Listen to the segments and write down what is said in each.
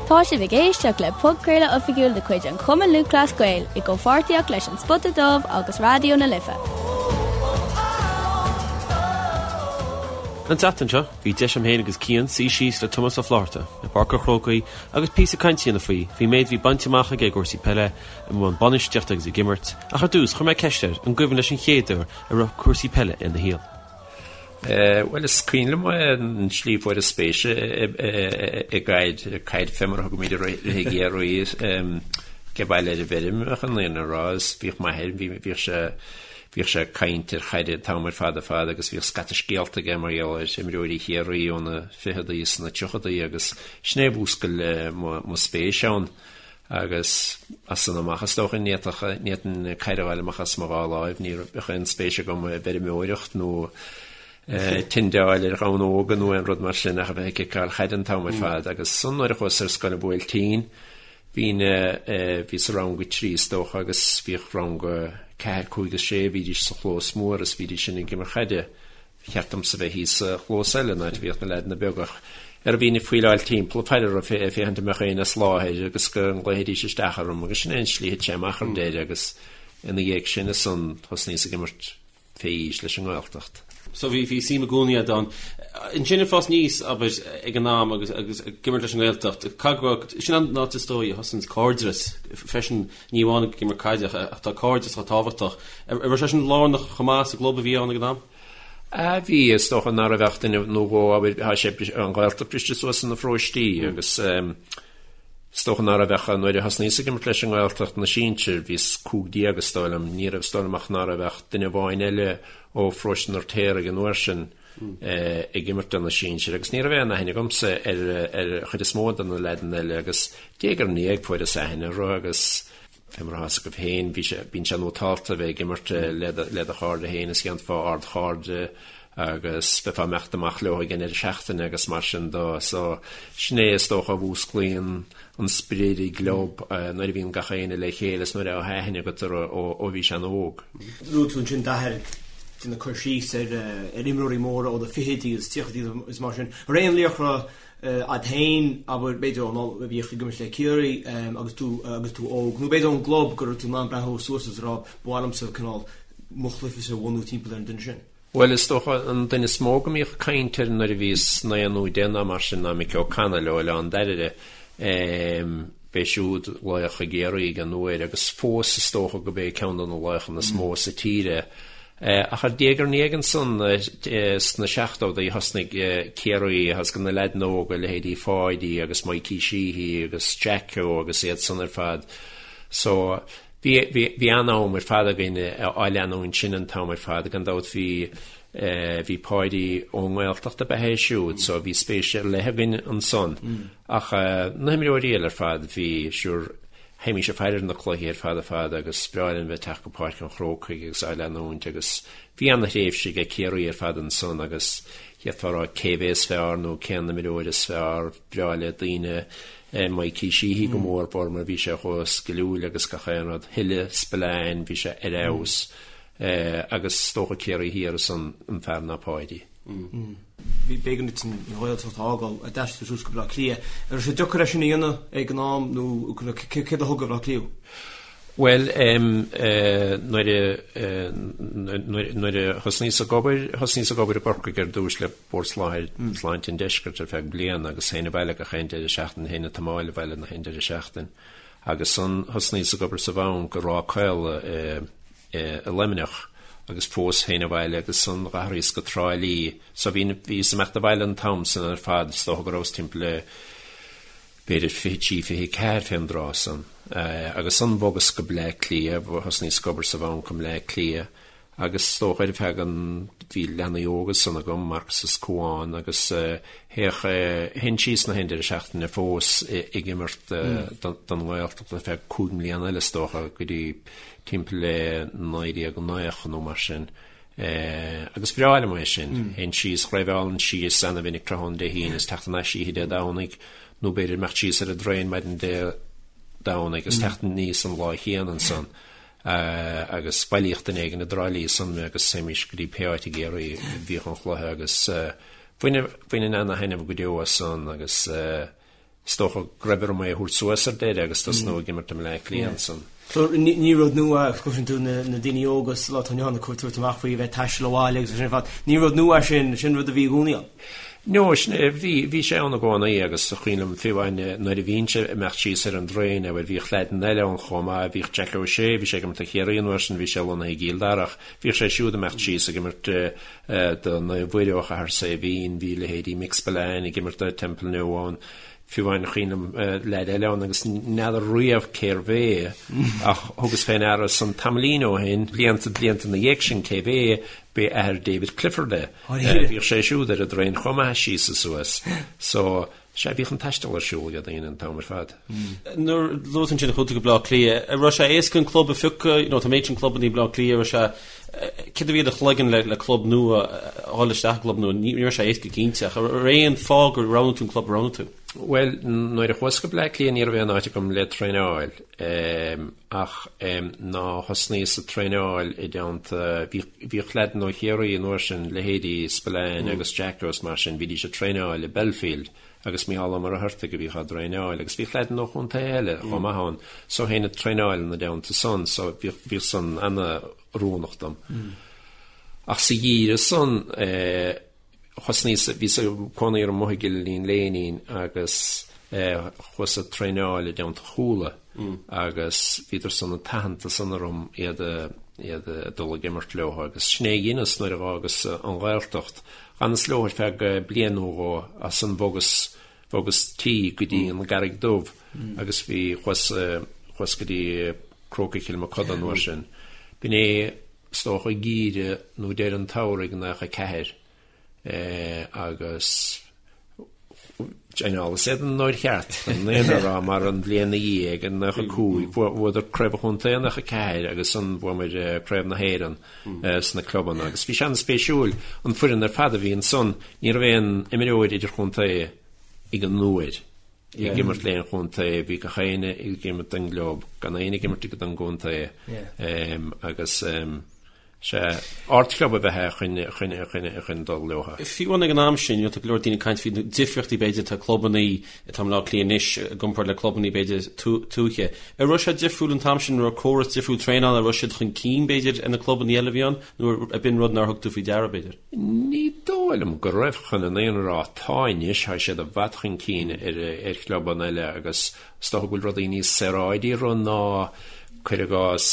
Tá sibh ag éisteacht le podchraoladh oifigiúil de chuid an Chumann Lúthchleas Gael i gcomhpháirtíocht leis An Spota Dubh agus Raidió na Life. An tseachtain seo, bhí deis agam féin agus Cian suí síos le Tomás Ó Flaithearta i bPáirc an Chrócaigh agus píosa cainte a dhéanamh faoi faoin méid a bhí bainte amach aige i gcúrsaí peile, i mbun bainistíochta agus ag imirt, ach ar dtús chuir mé ceist air an gcuimhin leis an chéad uair a raibh cúrsaí peile ina shaol. Bhuel, is cuimhin liom an tslí a fuaireas spéis i gcaid, caid fé mar a thugaimid uirthi i gCiarraí, ag baile ar an bhfeirm, chun an fhírinne a rá, is bhíodh m'athair, bhíodh sé, bhíodh sé ag caint ar chaid an t-am ar fad ar fad agus bhíodh scata scéalta aige mar gheall ar imreoirí Chiarraí ó na ficheadaí is na tríochadaí agus sin é a mhúscail mo spéis ann. Agus as san amach, is dócha, ní fhéadfadh, ní fhéadfainn caid a fháil amach as mo dhá láimh, ní raibh aon spéis agam i bhfeirmeoireacht nó tindeáil ar ghamhna óga nó aon rud mar sin ach a bheith ag ciceáil chaide an t-am ar fad. Agus ansan nuair a chuas ar scoil an Bhuailtín, bhínn, bhíos i rang a trí is dócha agus bhíodh rang a ceathair, cúig is sé, bhídís sa chlós mór is bhídís sin ag imirt chaide. Ba cheart domsa bheith thíos sa chlós eile, an áit a bhíodh na leaideanna beaga, ach ar bhínn ag faoileáil timpeall ag faire orthu ag féachaint an mbeadh éinne as láthair agus go nglaofaidís isteach orm agus sin é an tslí a thit sé amach ar deireadh agus ina dhiaidh sin ansan thosnaíos ag imirt fé aois leis an nGaeltacht. So bhí bhí suim i gcónaí agat ann. Ansin ag fás aníos, abair, ag an am agus agus ag imirt leis an nGaeltacht, caithfidh go raibh, sin an áit is dóigh a thosaíonns cairdeas freisin, ní amháin ag imirt caide ach tá cairdeas chomh tábhachtach. An raibh sé sin lárnach chomh maith sa gclub a bhí ann ag an am? A bhí, is dócha nach raibh ach duine nó dhó, abair, tá sé, an Ghaeltacht briste suas ina pharóistí agus is dócha nach raibh ach, nuair a thosnaíos ag imirt leis an nGaeltacht na sinsir, bhíos 15 is dóigh liom, ní raibh, is dóigh liom ach ná raibh ach duine amháin eile ó pharóiste an Fheirtéaraigh an uair sin ag imirt do na sinsir agus ní raibh aon aithne agamsa ar ar chuid is mó de na leaideanna eile agus diaidh ar ndiaidh fuaireas aithne orthu agus Fé mar atá 'fhios agaibh féin, bhí sé, bíonn sé nótálta a bheith ag imirt le do, le do chairde féin is dhéanfá ardchairde agus bheifeá ag imeacht amach leo ag an ndeireadh seachtaine agus mar sin de. So, sin é is dócha a mhúsclaíonn an sprid i gclub nuair a bhíonn gach éinne le chéile is nuair atá aithne agat orthu ó, ó bhís an-óg. Luaigh tú ansin d'athair ag déanamh cur síos ar, ar imreoirí móra ó na fichidí agus tríochaidí is mar sin. An raibh aon laochra Agat féin, abair, b'fhéidir ón am a bhíodh ag imirt le Ciarraí agus tú agus tú óg, nó b'fhéidir ón gclub go raibh tú in ann breathnú suas agus a rá, ba mhaith liomsa cineál mo chluichese a bhunú timpeall ar an duine sin. Bhuel, is dócha an duine is mó go mbíodh caint air nuair a bhíos naoi nó deich nó mar sin ná Mickey O'Connell ó Oileán Dairbhre. B'é siúd laoch i gCiarraí ag an uair agus fós is dócha go b'é ceann de na laochanna is mó sa tír é. Ach ar diaidh ar ndiaidh ansan sna seachtódaí thosnaigh Ciarraí agus na leaideanna óga, leithéidí Pháidí agus Mikey Sheehy agus Jacko agus iad san ar fad. So bhí bhí an-am ar fad againn á leanúint sin an t-am ar fad. Gan dabht bhí bhí Páidí ón nGaeltacht ab ea é siúd so bhí spéis ar leith againn ansan. Ach na himreoirí eile ar fad, bhí, sure, théimís ag faire ar na cluichí ar fad ar fad agus ba bhreá linn bheith ag teacht go Páirc an Chrócaigh agus á leanúint agus bhí ana-thréimhse ag Ciarraí ar fad ansan agus d'fhéadfá a rá cé mhéad is fearr nó cén imreoir is fearr, bhreá le daoine Mikey Sheehy go mór mhór mar bhí sé chomh sciliúil agus gach aon rud, Hille Spillane, bhí sé ar fheabhas agus is dócha Ciarraí Thiar ansan an fear ná Páidí. B'éigean duit an Ghaeltacht a fhágáil, d'aistrigh tú suas go Baile Átha Cliath. An raibh sé deacair é sin a dhéanamh ag an am nó céard a thug go Baile Átha Cliath thú? Bhuel, nuair a nuair a thosnaíos ag obair, thosnaíos ag obair i gCorcaigh ar dtús le Bord Sláinte an Deiscirt ar feadh bliana agus théinn abhaile gach aon deireadh seachtaine, théinn ag tiomáil abhaile gach aon deireadh seachtaine. Agus ansan thosnaíos ag obair sa bhanc i Ráth Caola i i Luimneach agus fós théinn abhaile agus ansan d'athraíos go Trá Lí. So bhí, bhíos ag imeacht abhaile an t-am san ar fad, is dócha go rabhas timpeall le b'fhéidir 23, 24 fén dtráth san. Agus ansan bhogas go Bleá Cliath, thosnaíos ag obair sa bhanc i mBleá Cliath agus is dócha ar feadh an, bhí leanaí óga ansan agam, Marcus is Cuán, agus théadh, théinn síos na haon deireadh seachtaine fós ag imirt don nGaeltacht ar feadh cúig mbliana eile is dócha go dtí timpeall le 1990 nó mar sin. Agus bhreá liom é sin. Théinn síos, dhraibheálainn síos ana-mhinic tráthnóna Dé hAoine is teacht thar n-ais oíche Dé Domhnaigh nó b'fhéidir imeacht síos ar an dtraein maidin Dé Domhnaigh agus teacht aníos an lá chéanna ansan. Agus bhailíodh duine éigin i dTrá Lí ansan mé agus théimis go dtí pé áit i gCiarraí a bhíodh an chluiche agus bhaininn ana-thaitneamh go deo as san agus. Is dócha go raibh orm é a thabhairt suas ar deireadh agus tosnú ag imirt i mBleá Cliath ansan. So ní rud nua, cloiseann tú na daoine óga sa lá atá inniu ann ag tabhairt amach faoi bheith ag taisteal abhaile agus sin ar fad. Ní rud nua é sin, sin rud a bhí i gcónaí ann. No, sin é, bhí, bhí sé ann i gcónaí agus is cuimhin liom fiú amháin nuair a bhínnse ag imeacht síos ar an dtraein, bhuel bhíodh leaideanna eile ann chomh maith, bhíodh Jack O'Shea, bhí sé ag imirt do Chiarraí an uair sin, bhí sé lonnaithe i gCill Dara ach bhíodh sé siúd ag imeacht síos ag imirt do Naomh Mhuire ó Chathair Saidhbhín, bhí leithéidí Mick Spillane ag imirt do Temple New ann, fiú amháin is cuimhin liom leaid eile ann agus n'fheadar riamh cérbh é ach thugas fé ndeara san tamaillín ó shin, blianta, blianta ina dhiaidh sin cérbh é, b'é athair David Clifford é. Bhíodh sé siúd ar an dtraein chomh maith síos is suas. So, Sea, bhíodh an taisteal ar siúl ag daoine an t-am ar fad. Nuair a luaigh tú ansin chuaigh tú go Bleá Cliath, an raibh sé éasca an club a phiocadh, you know, tá an méid sin clubanna i mBleá Cliath, raibh sé, céard a bhí i do chloigeann le, le club nua, a dhul isteach i gclub nua, ní raibh sé éasca cinnte, ach an raibh aon fáth gur roghnaigh tú an club a roghnaigh tú? Bhuel, nuair a chuas go Bleá Cliath ní raibh aon áit agam le traenáil. Ach ná thosnaíos ag traenáil i dteannta, bhíodh leaideanna ó Chiarraí an uair sin, leithéidí Spillane agus Jacko is mar sin, bhídís ag traenáil i Belfield agus Mícheál Ó Muircheartaigh a bhíodh á dtraenáil agus bhíodh leaideanna ó chontaetha eile chomh maith ann so théinn ag traenáil ina dteannta san so bhíodh san ana-oiriúnach dom. Ach sa gheimhreadh san, Thosnaíos, bhíos ag cónaí ar an mBoth i gCill Iníon Léinín agus chuas ag traenáil i dteannta Chuala agus bhíodar san ag tathant san orm iad a iad a dul ag imirt leo agus sin é a dheineas nuair a dh'fhágas an Ghaeltacht. Dh'fhanas leo ar feadh bliain nó dhó ansan bhogas bhogas tí go dtí an gCarraig Dubh agus bhí chuas chuas go dtí Crócaigh Chill Mochuda an uair sin. B'in é is dócha geimhreadh nó deireadh an tsamhraidh 94 agus dheineas iad an uair cheart an aon a rá mar an bhliain ina dhiaidh in 95 bhuadar Craobh an Chontae in 94 agus ansan bhuamar Craobh na hÉireann sna clubanna agus bhí sé an-spéisiúil an foireann ar fad a bhí ansan ní raibh aon imreoir idirchontae ag an uair. ag imirt le aon chontae, bhí gach éinne ag imirt don gclub, gan éinne ag imirt don gcontae agus sea, ardchlub ab ea é chun dul leo. Fiú amháin ag an am sin, tá go leor daoine ag caint faoi na difríochtaí b'fhéidir atá clubanna atá i mBleá Cliath anois i gcomparáid le clubanna b'fhéidir tuaithe. An raibh sé difriúil an t-am sin, an raibh córas difriúil traenála, an raibh siad chun cinn b'fhéidir ar na clubanna eile a bhí ann nó ab in rud nár thug tú faoi deara b'fhéidir? Ní dóigh liom go raibh chun an fhírinne a rá. Tá anois, tá siad i bhfad chun cinn ar chlubanna eile agus is dócha go bhfuil rudaí níos saoráidí orthu ná, cuir i gcás,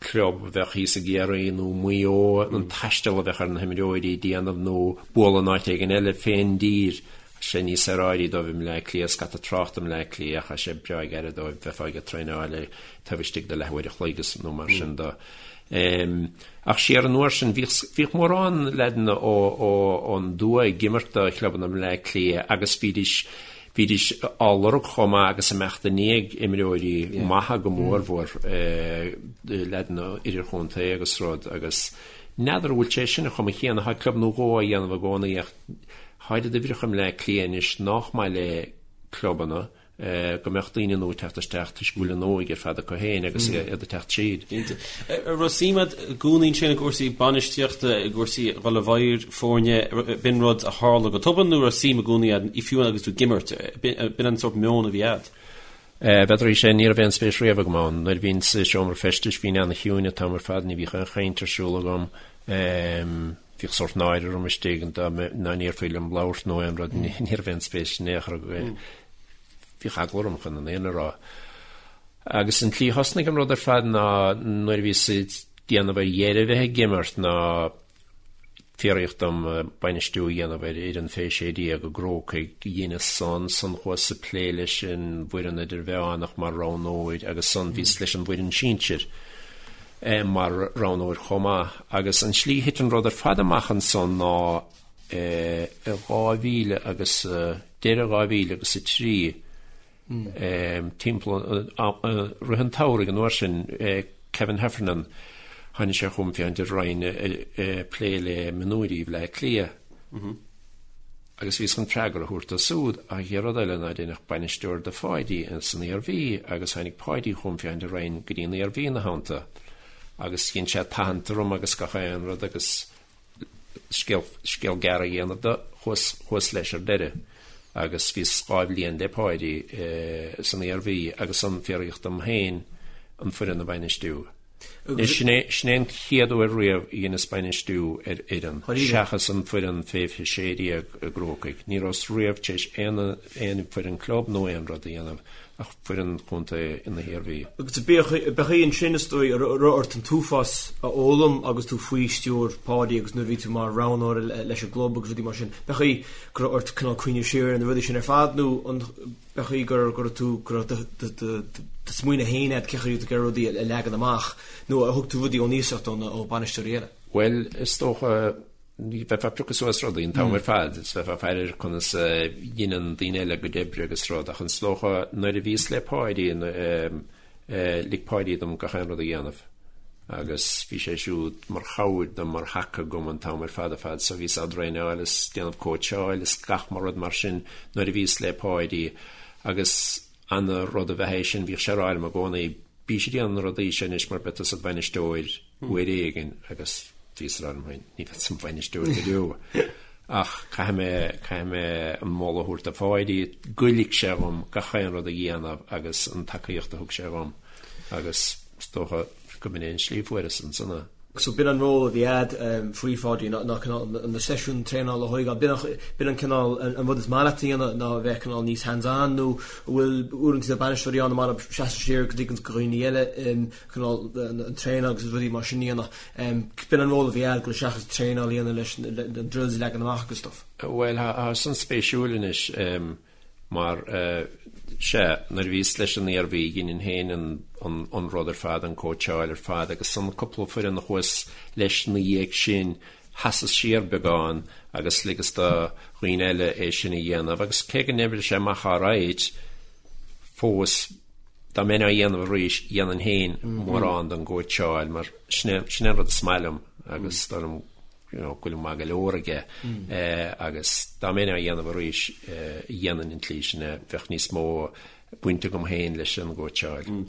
club a bheadh thíos i gCiarraí nó Maigh Eo, an taisteal a bheadh ar na himreoirí a dhéanamh nó bualadh in áit éigin eile fén dtír. Tá sé níos saoráidí dóibh i mBleá Cliath, scata tráchta i mBleá Cliath ach tá sé breá gairid dóibh, bheifeá ag traenáil taobh istigh de leathuair a chloig nó mar sin de. Ach siar an uair sin, bhíodh, bhíodh mórán leaideanna ó, ó, ón dtuath ag imirt do chlubanna i mBleá Cliath agus bhídís, bhídís á lorg chomh maith agus imeacht i ndiaidh imreoirí maithe go mórmhór, leaideanna idirchontae agus rud agus n'fheadar an bhfuil sé sin an chuma chéanna, tá club nó dhó á dhéanamh i gcónaí ach tá oiread uimhreacha i mBleá Cliath anois nách maith le clubanna. go mbeadh daoine nua ag teacht isteach toisc go bhfuil an óige ar fad acu féin agus iad ag teacht tríd. Cinnte. An raibh suim agat i gcónaí ansin i gcúrsaí bainistíochta, i gcúrsaí dhul i bhfeighil foirne, b'in rud a tharla go tobann nó raibh suim i gcónaí agat, fiú agus tú ag imirt, b'in an sórt meon a bhí agat? B'fhéidir é sin, ní raibh aon spéis riamh agam ann. Nuair a bhínn sa seomra feistis bhínn ana-chiúin an t-am ar fad, ní bhíodh aon chaint ar siúl agam. Bhíodh sórt náire orm istigh dá ndéarfaí liom labhairt nó aon rud, ní raibh aon spéis in aon chor agam. Bhíodh eagla orm chun an fhírinne a rá. Agus an tslí a thosnaigh an rud ar fad ná nuair a bhíos ag déanamh ar dheireadh a bheith ag imirt ná fiafraíodh dom bainistiú a dhéanamh ar fhoireann fé 16 i gCrócaigh. Dheineas san, san chuas ag plé leis an bhfoireann idirmheánach mar roghnóir agus san bhíos leis an bhfoireann sinsir. mar roghnóir chomh maith. Agus an tslí a thit an rud ar fad amach ansan ná i 2000 agus, deireadh 2003, timpeall rith an tsamhraidh an uair sin, Kevin Heffernan, tháinig sé chugam féachaint an raghainn ag plé le mionúirí Bhleá Cliath. Agus bhíos chun freagra a thabhairt dó súd, ach an chéad rud eile ná deineadh bainisteoir de Pháidí san Iarmhí agus tháinig Páidí chugam féachaint an raghainn go dtí an Iarmhí ina theannta agus dhein sé tathant orm agus gach aon rud agus scéal, scéal gearr a dhéanamh de, chuas, chuas leis ar deireadh. Agus bhíos 2 bhliain le Páidí san Iarmhí agus ansan fiafraíodh dom féin an foireann a bhainistiú. Sin é sin é an chéad uair riamh a dheineas bainistiú ar fhoireann, seachas an foireann fé 16 i gCrócaigh. Ní rabhas riamh tar éis aon aon foireann club nó aon rud a dhéanamh ach foireann chontae na hIarmhí. Agus b'é ansin is dóigh a raibh ort an t-uafás a fhoghlaim agus tú faoi stiúir Pháidí agus nuair a bhí tú mar roghnóir leis an gclub agus rudaí mar sin. B'é go raibh ort cineál cuimhneamh siar ar na rudaí sin ar fad nó an b'é go raibh tú go raibh do smaoineamh féin agat cén chaoi a raibh tú ag iarraidh rudaí a leagan amach nó ar thug tú rudaí ón iasacht ó bhainisteoirí eile? Bhuel, is dócha bheifeá ag piocadh suas rudaí an t-am ar fad, is bheifeá ag faire ar conas a dheineann daoine eile a gcuid oibre agus rud, ach is dócha nuair a bhíos le Páidí, lig Páidí dom gach aon rud a dhéanamh agus bhí sé siúd mar chabhair dom, mar thaca agam an t-am ar fad ar fad, so bhíos á dtraenáil is déanamh cóitseáil is gach mar rud mar sin nuair a bhíos le Páidí agus ana rud ab ea é sin, bhíodh sé ag rá liom i gcónaí, bís ag déanamh na rudaí seo anois mar beidh tusa id bhainisteoir uair éigin agus bhíos ag rá liom féin, ní bheadsa im bhainisteoir go deo. Ach caithfidh mé, caithfidh mé an moladh a thabhairt do Pháidí, go lig sé dhom gach aon rud a dhéanamh agus an tacaíocht a thug sé dhom agus is dócha go mb'in é an slí a fuaireas ansan é. So b'in an ról a bhí a'd faoi Pháidí ná ná cineál na seisiúin traenála a thógáil. B'in an b'in an cineál an rud is maith leat a dhéanamh ná a bheith cineál níos hands on nó an bhfuil uaireanta tá bainisteoirí ann mar a seasann siar go dtuigeann go dhaoine eile cineál an traenáil agus rudaí mar sin a dhéanamh. B'in an ról a bhí a'd go seachas traenáil a dhéanamh leis na drills a leagan amach agus stuff. Bhuel, tá san spéisiúil anois mar sea, nuair a bhíos leis an Iarmhí dheininn féin an rud ar fad, an cóitseáil ar fad agus an cúpla foireann a chuas leis ina dhiaidh sin, sheasas siar beagán agus ligeas do dhaoine eile é sin a dhéanamh agus cé go n-oibrigh sé amach alright fós, Dá mbeinn á dhéanamh arís, dhéanfainn féin mórán den gcóitseáil mar sin é sin é an rud is maith liom agus is dóigh liom you know go bhfuilim maith go leor aige agus dá mbeinn á dhéanamh arís, dhéanfainn an tslí sin é, bheadh níos mó baint agam féin leis an gcóitseáil. An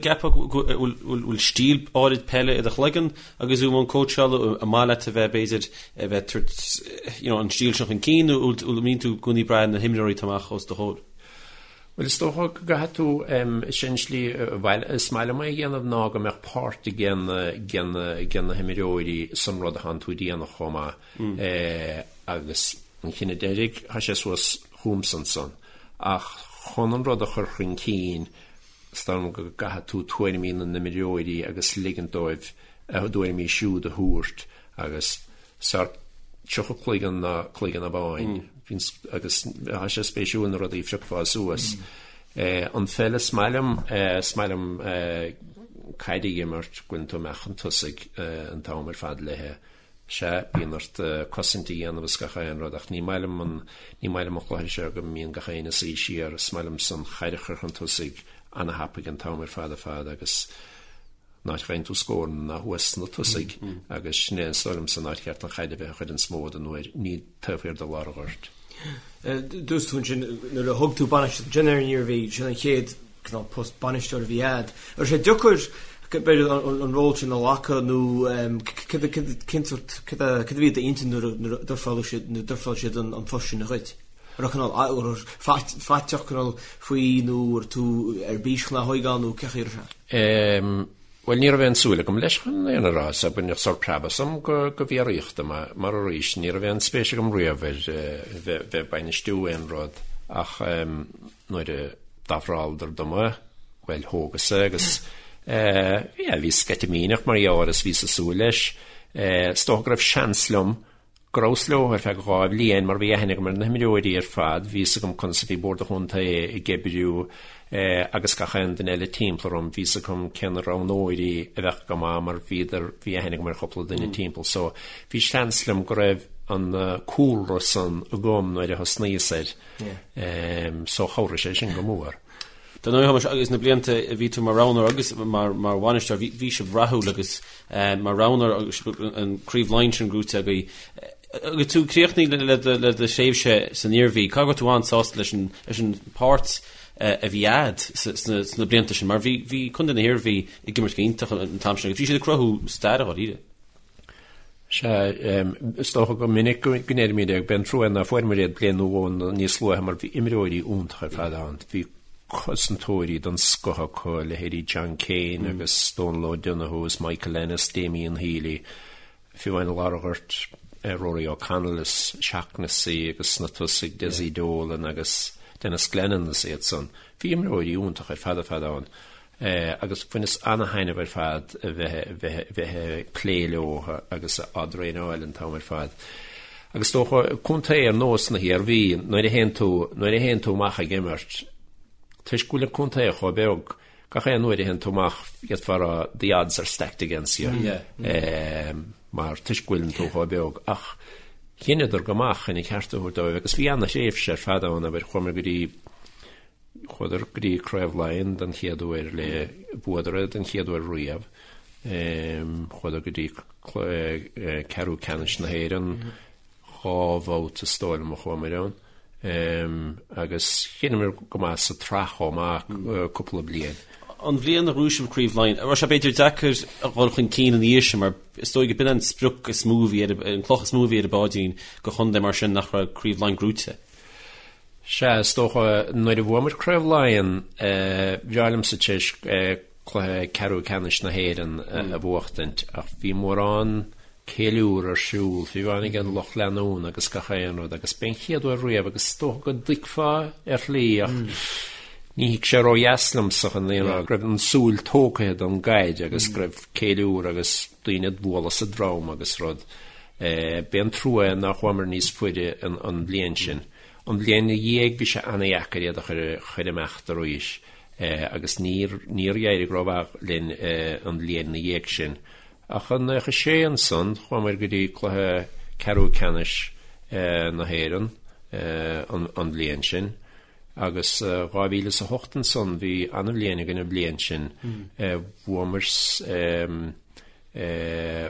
gceapfá go bhfuil stíl áirid peile i do chloigeann agus tú i mbun cóitseála, an maith leat a bheith b'fhéidir a bheith tabhairt you know an stíl sin chun cinn nó an mbíonn tú i gcónaí ag brath ar na himreoirí atá amach os do chomhair? Bhuel, is dócha go gcaithfidh tú, is é an slí is maith liom é a dhéanamh ná go mbeadh páirt ag na himreoirí san rud atánn tú a dhéanamh chomh maith agus an cinneadh deiridh, tá sé suas chugamsa ansan. Ach chun an rud a chur chun cinn, is dóigh liom go gcaithfidh tú tuairimí na n-imreoirí agus ligint dóibh a dtuairimí siúd a thabhairt agus 's fearr 30 cloigeann ná cloigeann amháin. Agus tá sé spéisiúil na rudaí a phiocfá suas. An pheil is maith liom, is maith liom caid a imirt, go bhfuileann tú amach chun tosaigh an t-am ar fad léithe. Sea, bíonn ort cosaint a dhéanamh is gach aon rud ach ní maith liom an, ní maith liom an cluiche seo go mbíonn gach éinne ag suí siar. Is maith liomsa an chaid a chur chun tosaigh ana-thapaidh an t-am ar fad ar fad agus An áit a bhfaigheann tú scóranna ná thuas sna tosaigh agus sin é is dóigh liomsa an áit cheart an chaid a bheith an chuid is mó den uair, ní taobh thiar de lár an ghoirt. Dúirt tú ansin nuair a thug tú bainistíocht ansin ar an Iarmhí, sin an chéad cineál post bainisteora a bhí a'd. Raibh sé deacair b'fhéidir an ról sin a ghlacadh nó cén sórt, cad a bhí i d'intinn nuair a d'ofráil siad, nuair a d'ofráil siad an post sin dhuit? An raibh cineál faiteach cineál faoi nó raibh tú ar bís chun é a thóigeáil nó cén chaoi a raibh sé? Em, bhuel ní raibh aon súil agam leis chun an fhírinne a rá, so baineadh sórt preab asam go, go bhfiafraíodh dom é, mar arís ní raibh aon spéis agam riamh ar eh, bheith, bheith ag bainistiú aon rud ach em, nuair a d'ofráladar dom é, bhuel thógas é agus eh, yeah, bhí sceitimíneach mar gheall air is bhíos ag súil leis. Eh, is dócha go raibh seans liom go rabhas leo ar feadh 2 bhliain mar bhí aithne agam ar na himreoirí ar fad, bhí fhios agam conas a bhí Bord an Chontae ag oibriú agus gach aon duine eile timpeall orm, bhí fhios agam cé na roghnóirí a bheadh go maith mar bhíodar, bhí aithne agam ar chúpla duine timpeall so bhí seans liom go raibh an cúlra san agam nuair a thosnaíos air so chabhraigh sé sin go mór. Dar ndóigh, Thomáis, agus na blianta a bhí tú mar roghnóir agus mar bhainisteoir, bhí sibh rathúil agus mar roghnóir agus an Craobh Laighean sin gnóite agaibh. Agus tú ag críochnú le do thréimhse san Iarmhí, caithfidh go raibh tú an-sásta leis an páirt a bhí a'd sna blianta sin, mar bhí Contae na hIarmhí ag imirt go hiontach an t-am sin agus bhí siad ag cruthú staire dháiríre. Sea, is dócha go minic go ndeirimid é, b'é an trua ná fuaireamar iad bliain nó dhó níos luaithe mar bhí imreoirí iontacha ar fad ann. Bhí cosantóirí den scoth acu, leithéidí John Kane agus Dónal O'Donoghue is Michael Ennis, Damien Healy, fiú amháin i lár an ghoirt, Rory O'Connell is Shaughnessy agus sna tosaigh Dessie Dolan agus Denis Glennon is iad san. Bhí imreoirí iontacha ar fad ar fad ann. Agus bhaineas ana-thaitneamh ar fad a bheith bheith ag plé leo agus á dtraenáil an t-am ar fad. Agus is dócha, contae ar nós na hIarmhí, nuair a théann tú, nuair a théann tú amach ag imirt, toisc go bhfuil an contae chomh beag, gach aon uair a théann tú amach, d'fhéadfá a rá the odds are stacked against you, mar toisc go bhfuileann tú chomh beag. Ach dheineadar go maith chun an ceart a thabhairt dóibh agus bhí ana-thréimhse ar fad ann, abair, chuamar go dtí, Chuadar go dtí Craobh Laighean den chéad uair le bhuadar é den chéad uair riamh. Chuadar go dtí ceathrú ceannais na hÉireann dhá bhabhta is dóigh liom a chuamar ann. Agus dheineamar go maith sa tsraith chomh maith cúpla bliain. An bhliain a ghnóthaigh sibh Craobh Laighean, an raibh sé b'fhéidir deacair a dhul chun cinn ina dhiaidh sin mar is dóigh go b'in an sprioc is mó a bhí ar an cloch is mó a bhí ar an bpáidín do chontae mar sin nach raibh Craobh Laighean gnóite. Sea, is dócha, nuair a bhuamar Craobh Laighean, bhreá liomsa tar éis cluiche ceathrú ceannais na hÉireann a bhuachtaint, ach bhí mórán ceiliúr ar siúl, fiú amháin ag an lucht leanúna agus gach aon rud, agus b'é an chéad uair riamh, agus is dócha go dtuigfeá ar shlí, ach ní thit sé ródheas liomsa chun an fhírinne a rá, go raibh an súil tógtha den gcaid agus go raibh ceiliúr agus daoine ag bualadh sa drom agus rud. B'é an trua é nár chuamar níos faide an bhliain sin. An bhliain ina dhiaidh bhí sé ana-dheacair iad a chur amach arís agus níor níor éirigh rómhaith linn an bhliain ina dhiaidh sin. Ach i 96 ansan chuamar go dtí cluiche ceathrú ceannais na hÉireann an bhliain sin. Agus 2008 ansan, bhí an-bhliain againn an bhliain sin. Bhuamar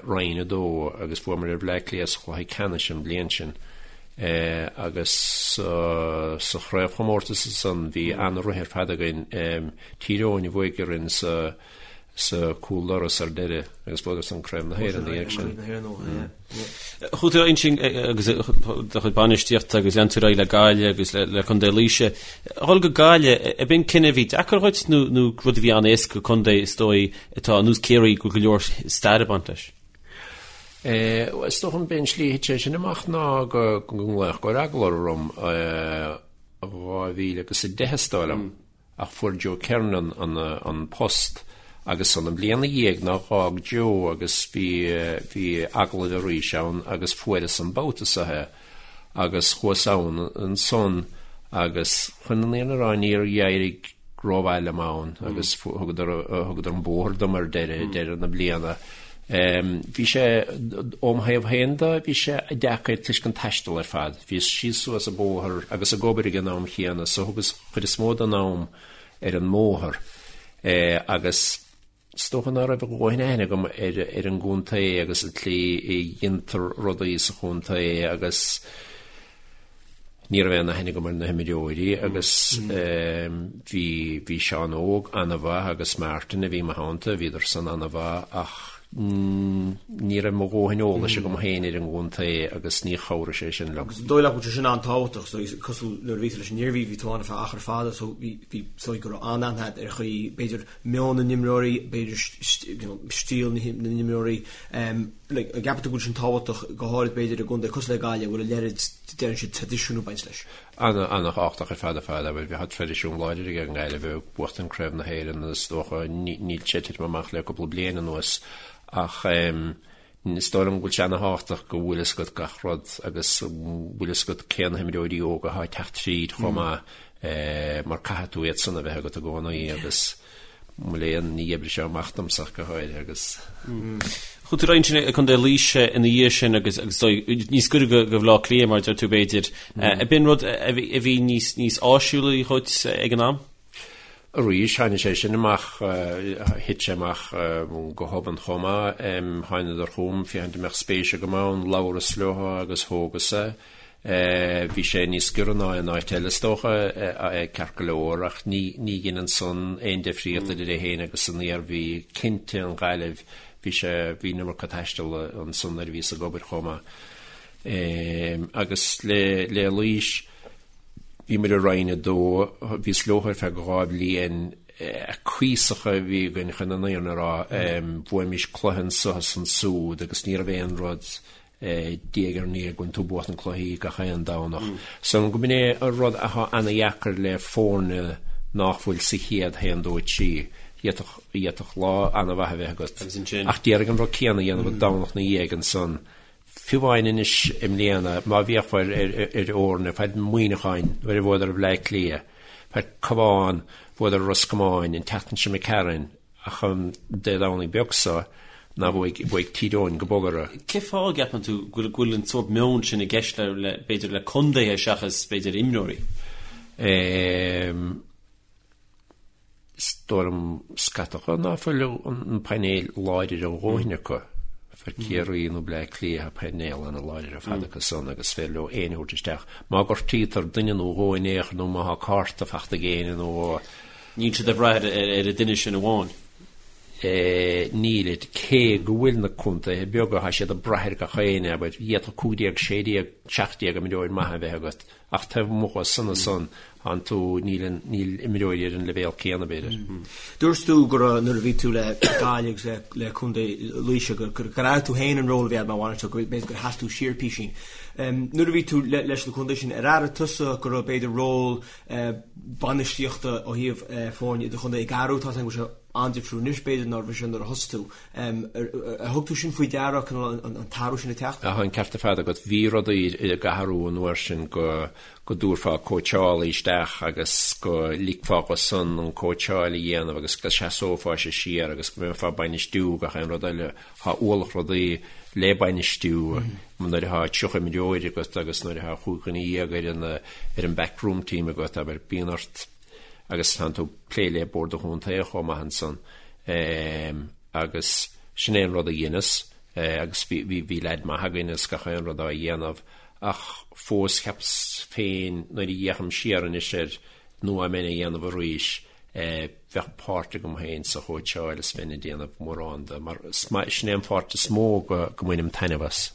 Roinn 2 agus bhuamar ar Bhleá Cliath sa chluiche ceannais an bhliain sin. Agus sa chraobhchomórtas ansan bhí an-rith ar fad againn. Tír Eoghain a bhuaigh orainn sa sa cúl doras ar deireadh agus bhuadar san Craobh na hÉireann ina dhiaidh sin. Chuaigh tú ansin agus do chuid bainistíochta agus lean tú ar aghaidh le Gaillimh agus le Contae Laoise. A dhul go Gaillimh, ab in cinneadh a bhí deacair dhuit nó nó rud a bhí an-éasca contae is dóigh atá ar nós Ciarraí go bhfuil go leor stair ag baint leis? Is dócha b'é an slí a thit sé sin amach ná go nglaodh go raibh agallamh orm 2010 is dóigh liom. ach fuair Joe Kernan an post agus an bhliain ina dhiaidh ná dh'fhág Joe agus bhí bhí agallamh arís ann agus fuaireas an babhta seo é agus chuas ann ansan agus chun an fhírinne a rá níor éirigh rómhaith liom ann agus thugadar thugadar an bóthar dom ar deireadh deireadh na bliana. Bhí sé óm thaobh féin de bhí sé deacair toisc an taisteal ar fad. Bhíos síos suas an bóthar agus ag obair ag an am chéanna so thugas chuid is mó den am ar an mbóthar agus is dócha ná raibh a dhóthain aithne agam ar ar an gcontae agus an tslí a dhéantar rudaí sa chontae agus ní raibh aon aithne agam ar na himreoirí agus bhí bhí Seán Óg an-mhaith agus Martin a bhí i mo theannta, bhíodar san an-mhaith ach ní raibh mo dhóthain eolais agam féin ar an gcontae agus ní chabhraigh sé sin liom. Agus an dóigh leat go bhfuil sé sin an-tábhachtach, so cosúil nuair a bhí tú leis an Iarmhí, bhí tú ann ar feadh achar fada, so bhí, bhí, so go raibh an-aithne agat ar chaoi, b'fhéidir, meon na n-imreoirí, b'fhéidir you know, stíl na n-imreoirí, um, like, an gceapann tú go bhfuil sin tábhachtach go háirid b'fhéidir i gcontae cosúil le Gaillimh, a bhfuil a leithéid, deireann siad, traidisiún ag baint leis. Ana-thábhachtach ar fad ar fad, abair, bheadh traidisiún láidir ag an nGaillimh ag buachtaint Craobh na hÉireann is dócha, níl sé ag titim amach le cúpla bliain anuas ach is dóigh liom go bhfuil sé ana-thábhachtach go bhfuil fhios agat gach rud agus bhfuil fhios agat cé na himreoirí óga atá ag teacht tríd chomh maith mar caithfidh tú iad san a bheith agat i gcónaí agus Mo léan, ní oibrigh sé amach domsa ach go háirithe agus. Chuaigh tú ar aghaidh ansin ag Contae Laoise ina dhiaidh sin agus agus níos gaire do Bhaile Átha Cliath mar a deir tú b'fhéidir. Ab in rud a bhí níos níos áisiúla dhuit ag an am? Arís, tháinig sé sin amach, thit sé amach go hobann chomh maith. Thánadar chugam féachaint an mbeadh spéis agam ann, labhras leo agus thógas é. Bhí sé níos giorra ná aon áit eile is dócha, ceart go leor, ach ní ní dheineann san aon difríocht idir é féin agus an Iarmhí. Cinnte, an Ghaillimh. Bhí sé, bhí an iomarca taistil ansan nuair a bhíos ag obair chomh maith. Agus le, le Laois, bhí muid i Roinn 2, bhíos leo ar feadh 2 bhliain, cuíosach a bhí againn chun an fhírinne a rá, bhuaimis cluiche anso is ansúd agus ní raibh aon rud diaidh ar ndiaidh go bhfuil tú ag buachan cluichí gach aon Domhnach. So go b'in é an rud athá ana-dheacair le foirne nách bhfuil sa chéad haon, dó, trí. D'fhéadfadh lá ana-mhaith a bheith agat ach d'iarraidh an rud céanna a dhéanamh an Domhnach 'na dhiaidh ansan. Fiú amháin anois i mbliana, má bhféachfá ar fhoirne, faid Muineacháin nuair a bhuadar ar Bhleá Cliath, faid Cabhán, bhuadar ar Ros Comáin, an tseachtain seo imigh tharainn, Ach an Dé Domhnaigh beag seo ná bhuaigh, bhuaigh Tír Eoghain go bog orthu. Cén fáth a gceapann tú go bhfuil, go bhfuil an sórt meon sin i gceist le, le, b'fhéidir le contaetha seachas b'fhéidir imreoirí? Ehm, is dóigh liom scata ná fuil an painéal láidir a dhóthain acu. Faid Ciarraí nó Bleá Cliath tá painéal ana láidir ar fad acu san agus is féidir leo éinne a thabhairt isteach. Má gortaítear duine nó dhó in aon chor nó má thá cárta fachta ag éinne nó dhó, Níl siad ag brath ar an duine sin amháin. Nílid. Cé go bhfuil na contaetha beaga, tá siad ag brath ar gach éinne, abair, d'fhéadfadh 15, 16, 17 imreoir maith a bheith agat, ach taobh amuigh de san ansan, tánn tú, níl an, níl imreoirí ar an leibhéal céanna, b'fhéidir. Dúirt tú go raibh, nuair a bhí tú le Gaillimh agus le Contae Laoise, gur airigh tú féin an ról a bhí agat mar bhainisteoir, go b'fhéidir gur sheas tú siar písín. Nuair a bhí tú leis na contaetha sin, ar airigh tusa go raibh b'fhéidir ról bainistíochta ó thaobh foirne idirchontae ag athrú, tá a fhios agam go bhfuil sé an-difriúil anois b'fhéidir ná a bhí sé nuair a thosaigh tú. Ar thug tú sin faoi deara, cineál an t-athrú sin ag teacht? Tá an ceart ar fad agat. Bhí rudaí ag athrú an uair sin go go dtabharfá cóitseálaí isteach agus go ligfeá dho san an cóitseáil a dhéanamh agus go seasófása siar agus go mbeifeá ag bainistiú gach aon rud eile. Tá ualach rudaí le bainistiú nuair atá 30 imreoir agat agus nuair atá 15 dhuine ar an ar an backroom team agat, abair, bíonn ort agus tánn tú ag plé le Bord an Chontae chomh maith ansan agus sin é an rud a dheineas agus bhí bhí bhí leaid maith againn agus gach aon rud á dhéanamh ach fós cheapas féin nuair a fhéachaim siar anois air nó dá mbeinn á dhéanamh arís bheadh páirt agam féin sa chóitseáil is bheinn ag déanamh mórán de, mar sin é an pháirt is mó go mbainim taitneamh as.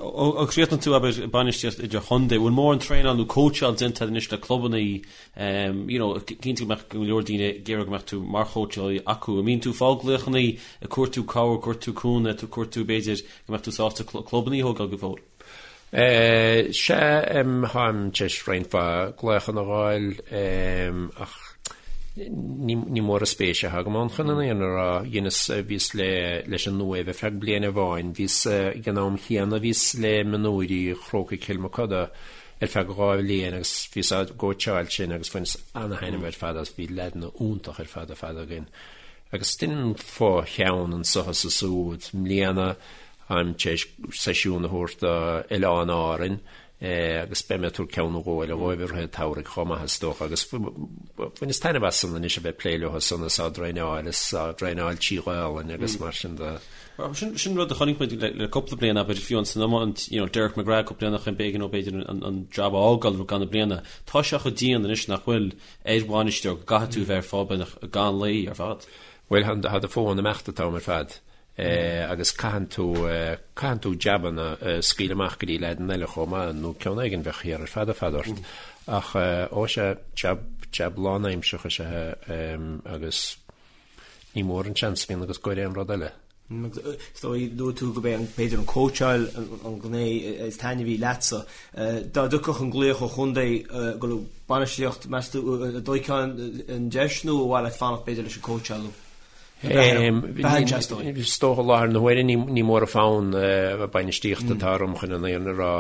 Ó chríochnaigh tú, abair, bainistíocht idirchontae, bhfuil mórán traenáil nó cóitseáil déanta agat anois le clubanna, you know, cinnte go mbeadh go leor daoine ag iarraidh go mbeadh tú mar chóitseálaí acu. An mbíonn tú ag fáil glaochanna ag cuartú cabhair, ag cuartú cúnamh, ag cuartú b'fhéidir go mbeadh tú sásta clubanna a thógáil go fóill? Sea, táim tar éis roinnt mhaith glaochanna a fháil, ach ní mór an spéis atá agam ann chun an fhírinne a rá. Dheineas, bhíos le, leis an Uaimh ar feadh bliain amháin, bhíos ag an am chéanna, bhíos le mionúirí Chrócaigh Chill Mochuda ar feadh 2 bhliain agus bhíos á gcóitseáil sin agus bhaineas ana-thaitneamh ar fad as, bhí leaideanna iontach ar fad ar fad againn. Agus deinim fo-cheann anso is ansúd. I mbliana, Táim tar éis seisiún a thabhairt do Oileáin Árainn agus beidh mé ag tabhairt ceann nó dhó eile dhóibh i rith an tsamhraidh chomh maith is dócha agus bhaineas taitneamh as san anois a bheith ag plé leo san is á dtraenáil is á dtraenáil trí Ghaolainn agus mar sin de. Sin sin rud a chonaic muid le cúpla bliain abair fiú san iomáint you know Derek McGrath cúpla bliain ó shin b'éigean dó b'fhéidir an jab a fhágáil roimh ceann na bliana. Tá sé chomh dian anois nach bhfuil ar bhainisteoir go gcaithfidh tú a bheith ar fáil beagnach gan luí ar fad. Bhuel tá do fón ag imeacht an t-am ar fad. agus caitheann tú, caitheann tú jabanna a scaoileadh amach go dtí leaideanna eile chomh maith, nó ceann éigin bheadh thiar ar fad ar fad ort. Ach ó sea, jab, jab lánaimseartha is ea é agus ní mór an seans a bhíonn agat ag goil aon rud eile. Is dóigh, luaigh tú gurb é an, b'fhéidir an cóitseáil an ghné is taitneamhaí leatsa. Dá dtiocfadh an glaoch ó chontae go raibh bainistíocht, meas tú, an dtógfá an deis nó ar mhaith leat fanacht b'fhéidir leis an cóitseáil nó? Is dócha i láthair na huaire ní mór an fonn bainistíochta atá orm chun an fhírinne a rá.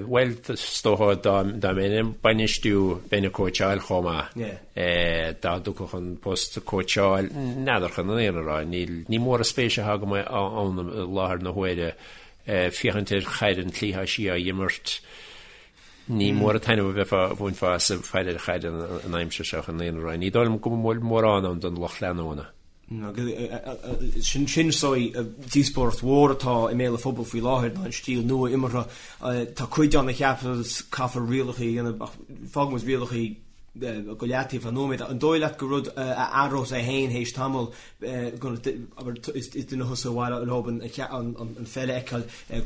Bhuel, is dócha dá mbeinn ag bainistiú bheinn ag cóitseáil chomh maith. Dá dtiocfadh an post cóitseáil, n'fheadar chun an fhírinne a rá. Ní mór an spéis atá agam ann i láthair na huaire féachaint ar chaid an tslí atá sí á imirt. Ní mór an taitneamh a bheifeá, a bhainfeá as ag faire ar chaid an aimsir seo chun an fhírinne a rá. Ní dóigh liom go bhfuil mórán ann don lucht leanúna. Sin sin is dóigh díospóireacht mhór atá i mbéal an phobail faoi láthair ná an stíl nua imeartha. Tá cuid ann a cheapas caithfear rialacha a dhéanamh ach fágfaidh muid rialacha. go leataobh ar nóiméad. An dóigh leat gur rud a athrós é féin théis tamaill, abair, is duine thusa ar mhaith leo an pheil a fheiceáil ag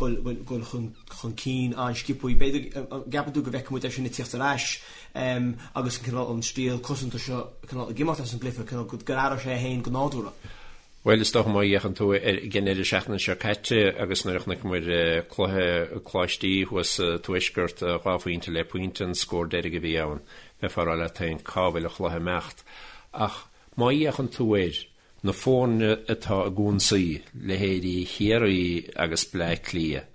dul chun cinn an-sciobtha. B'fhéidir, an gceapann tú go bhfeicfidh muid é sin ag tíocht ar ais agus an cineál, an stíl cosanta seo cineál ag imeacht as an gcluiche, cineál go athróidh sé é féin go nádúrtha? Bhuel, is dócha má fhéachann tú ar an deireadh seachtaine seo caite agus nuair a chonaiceamar cluiche Coláistí thuas sa Tuaisceart, 2 phointe le pointe an scór deiridh a bhí ann, bheifeá ag rá leat féin cá bhfuil an chluiche ag imeacht. Ach má fhéachann tú ar na foirne atá ag ionsaí, leithéidí Chiarraí agus Bleá Cliath,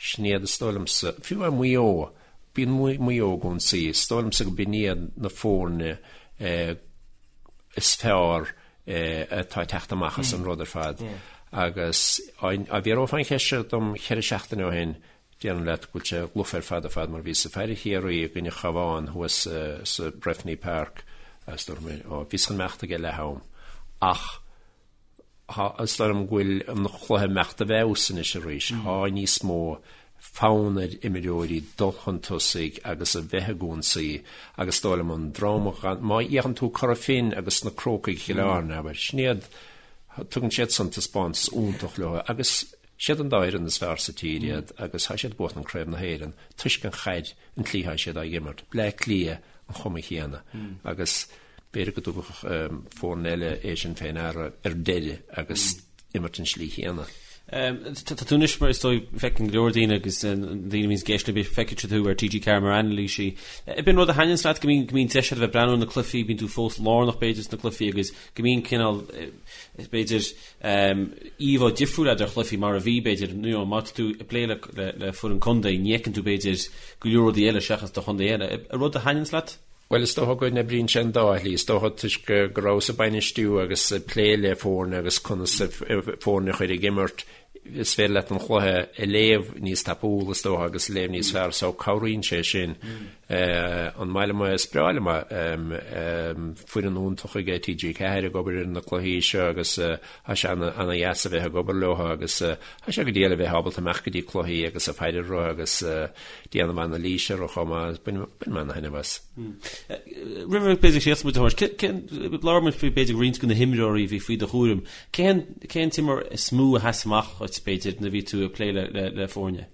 sin iad is dóigh liomsa, fiú amháin Maigh Eo, bíonn Maigh Eo ag ionsaí, is dóigh liomsa go b'in iad na foirne is fearr atá ag teacht amach as an rud ar fad. Agus dá bhfiafrófá an cheist seo dom cheithre seachtaine ó shin, déarfainn leat go bhfuil sé lofa ar fad ar fad mar bhíos ag faire Chiarraí i gcoinne Chabhán thuas sa Breffni Park agus dúirt mé, ó, bhíos chun imeacht ag leath am. Ach is dóigh liom go bhfuil an chluiche ag imeacht i bhfeabhas anois arís. Tá níos mó fonn ar imreoirí dul chun tosaigh agus a bheith ag ionsaí agus is dóigh liom an dream a má fhéachann tú Cora Finne agus na Crócaigh Chill Airne, abair, sin iad, tugann siad san taispeántas iontach leo agus siad an dá fhoireann is fearr sa tír iad agus tá siad ag buachan Craobh na hÉireann toisc an chaid, an tslí atá siad á imirt. Bleá Cliath an chuma chéanna agus b'fhéidir go dtabharfadh foirne eile é sin fé ndeara ar deireadh agus imirt an slí chéanna. Tá tú anois mar is dóigh feiceann go leor daoine agus daoine a bhíonns ag éisteacht linn feicfidh siad thú ar TG4 mar anailísí. Ab in rud a thaitníonns leat go mbíonn go mbíonn deis agat a bheith ag breathnú ar na cluichí, bíonn tú fós lárnach b'fhéidir sna cluichí agus go mbíonn cineál b'fhéidir íomhá difriúil agat ar chluichí mar a bhí b'fhéidir you know má tá tú ag plé le le foireann contae ní fheiceann tú b'fhéidir go leor rudaí eile seachas do chontae féin. An rud a thaitníonns leat? Bhuel, is dócha go n-oibríonn sé an dá shlí. Is dócha toisc go rabhas ag bainistiú agus ag plé le foirne agus conas foirne a chur ag imirt, is féidir leat an chluiche a léamh níos tapúla, is dócha, agus a léamh níos fearr so cabhraíonn sé sin. An maith liom é? Is breá liom é. Foireann iontach aige TG4 ag obair ar na cluichí seo agus tá sé ana-dheas a bheith ag obair leo agus tá sé go diail a bheith ábalta imeacht go dtí cluichí agus ag faire orthu agus déanamh anailíse orthu chomh maith. Bainim ana-thaitneamh as. Roimh b'fhéidir síos muid a thabhairt, labhair muid faoi b'fhéidir roinnt de na himreoirí a bhí faoi do chúram. Cén cén t-imreoir is mó a sheas amach dhuit b'fhéidir nuair a bhí tú ag plé le le le foirne?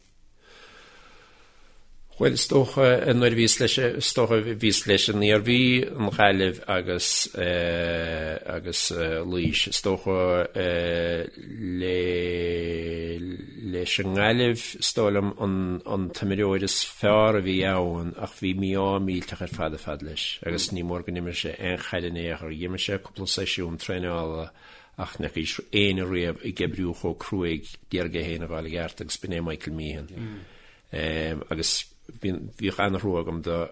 Bhuel is dócha nuair a bhíos leis is dócha bhíos leis an Iarmhí, an Ghaillimh agus agus Laois. Is dócha le leis an nGaillimh, is dóigh liom, an t-imreoir is fearr a bhí ann ach bhí mí-ádh millteach ar fad ar fad leis agus ní mór go n-imir sé aon chaid in aon chor. D'imir sé cúpla seisiún traenála ach ní fhacaís éinne riamh ag oibriú chomh cruaidh d'iarraidh é féin a fháil i gceart agus b'in é Michael Meehan. Agus bhíodh an-thrua agam dó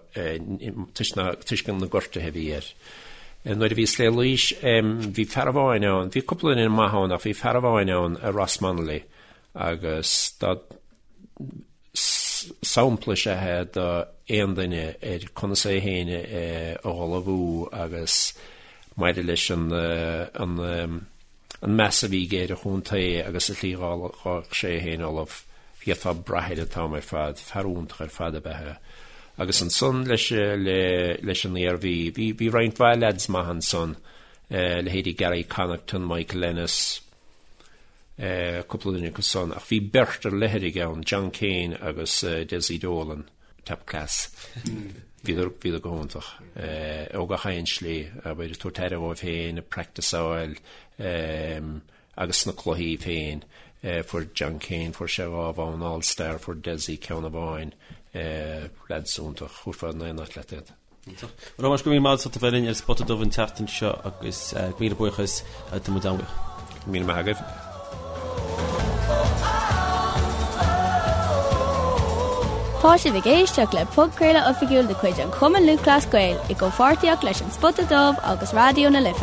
toisc na gortuithe a bhí air. Nuair a bhíos le Laois, bhí fear amháin ann, bhí cúpla duine maith ann ach bhí fear amháin ann, Ross Munnelly, agus dá sampla is ea é do aon duine ar conas é féin a ullmhú agus maidir leis an an meas a bhí aige ar an chontae agus an tslí dhá raibh sé é féin ullamh, d'fhéadfá brath air an t-am ar fad, fear iontach ar fad ab ea é. Agus ansan leis leis an Iarmhí, bhí bhí roinnt mhaith leaids maith ansan, leithéidí Gary Connaughton, Michael Ennis, cúpla duine acu san, ach bhí beirt ar leithrigh ann, John Kane agus Dessie Dolan. Top class. Bhíodar, bhíodar go hiontach. Ó gach aon slí, abair, ag tabhairt aire dhóibh féin, ag practiceáil, agus sna cluichí féin. Fuair John Kane, fuair sé dhá bhonn All Star, fuair Dessie ceann amháin. Lads iontach, thabharfá in aon áit leat iad. Iontach. Bhuel, a Thomáis, go raibh míle maith agat as ucht a bheith linn ar an Spota Dubh an tseachtain seo agus míle buíochas, tá muid an-bhuíoch. Míle maith agaibh. Tá sibh ag éisteacht le podchraoladh oifigiúil de chuid an Chumann Lúthchleas Gael i gcomhpháirtíocht leis An Spota Dubh agus Raidió na Life.